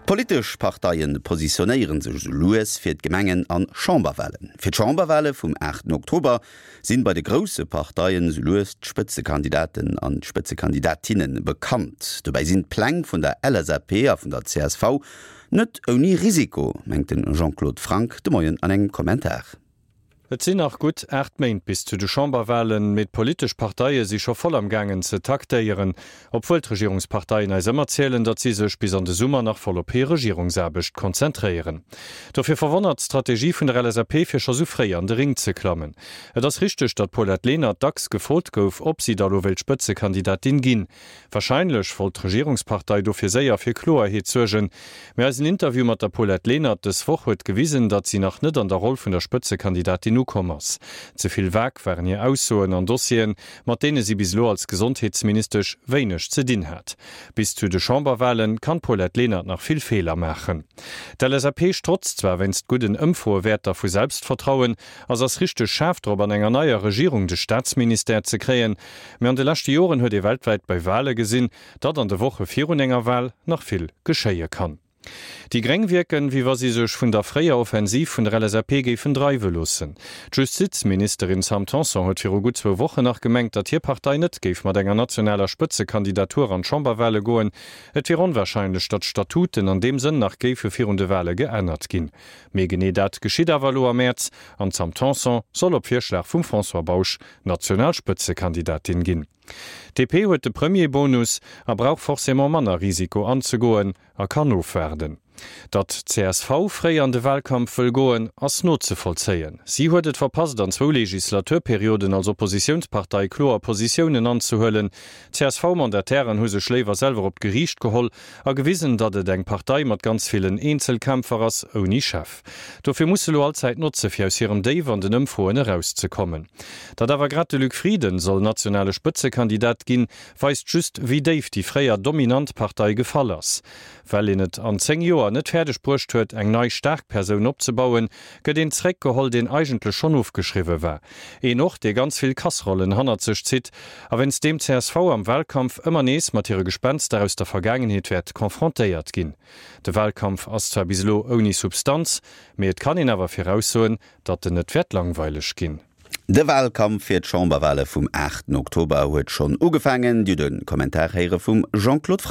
D'politesch Parteie positionéiere sech esou lues fir d'Gemengen an Chamberwalen. Fir d'Chamberwale vum 8 Oktober sinn bei de grousse Parteien esou lues d'Spëtzekandidaten an d'Spëtzekandidatinne bekannt. Dobäi sinn d'Pläng vun der LSAP a vun der csv net ouni Risiko, mengt de Jean-Claude Franck de Moien an engem Kommentar. Et sinn nach gutt 8 Méint bis zu de Chamberwalen, mee d'politesch Parteie si scho voll am gaangen ze taktéieren. Obwuel d'Regierungsparteien eis ëmmer zielen, datt si sech bis an de Summer nach voll op hir Regierungsaarbecht konzentréieren. Dofir verwonnert d'Strategie vun der LSAP fir scho sou fréi an de Ring ze klammen. Et ass richteg, datt d'Paulette Lenert dacks gefrot gouf, ob si da lo wéilt Spëtzekandidatin ginn. Warscheinlech wollt d'Regierungspartei dofir séier fir Kloerheet suergen. Mee eisen Interview mat der Paulette Lenert dës Woch huet gewisen, datt si nach net an der Roll vun der Spëtzekandidatin ukomm ass. Ze vill vag waren hir Aussoen an Dossieren, mat deene si bis elo als Gesondheetsministesch wéineg ze dinn hat. Bis zu de Chamberwale kann d'Paulette Lenert nach vill Feeler maachen. D'LSAP strotzt zwar wéinst gudden Ëmfroewäerter vu Selbstvertrauen a s'ass richteg schaarf drop an enger neier Regierung de Staatsministère ze kréien, Mee an de leschte Joren huet ee weltwäit bei Wale gesinn, datt an de Woche virun enger Wal nach vill geschéie kann. Déi gréng wierken, wéi wa si sech vun der fréier Offensiv vun der LSAP géifen dreiwe loossen. D'Justizministerin Sam Tanson huet viru gutt zwou Wochen nach gemengt, datt hir Partei net géif mat enger nationaler Spëtzekandidatur an d'Chamberwale goen. Et wier onwarscheinlech, datt d'Statuten an deem Sënn nach géife virun de Wale geännert ginn. Mee genee dat geschitt awer elo am Mäerz an d'Sam Tanson soll op Virschlag vum François Bausch national Spëtzekandidatin ginn. DP huet de Premier-Bonus a brauch forcément manner Risiko anzegoen a kann ofwaarden. Datt csv fréi an de Wahlkampf wëll goen, ass nozevollzéien. Si huet et verpasst an zwou Legislaturperioden als Oppositiounspartei kloer Positiounen anzehuelen. D'CSV-Mandatairen hu sech léiwer selwer op d'Geriicht geholl a gewisen, datt et eng Partei mat ganz villen Eenzelkämpfer ass, ouni Chef. Dofir muss se elo all Zäit notze fir aus hirem Déif an den Ëmfroen erauszekommen. Datt awer grad de Luc Frieden soll nationale Spëtzekandidat ginn, weist just wéi déif déi fréier dominant Partei gefall ass. Well een et an 10 Joer net fäerdeg bruecht huet eng nei staark Persoun opzebauen, gëtt een zeréckgeholl deen eigentlech schonn ofgeschriwwe war. Een och dee ganz vill Kasserollen hannert sech zitt a wéinst deem csv am Wahlkampf ëmmer nees mat hire Gespenster aus der Vergaangenheet wäert confrontéiert ginn. De Wahlkampf ass zwar bis elo ouni Substanz, mee et kann een awer viraussoen, datt en net wäert langweileg ginn. De Wahlkampf fir d'Chamberwahle vum 8 Oktober huet schonn ugefaangen. Dir hutt e Kommentar héiere vum Jean-Claude Franck.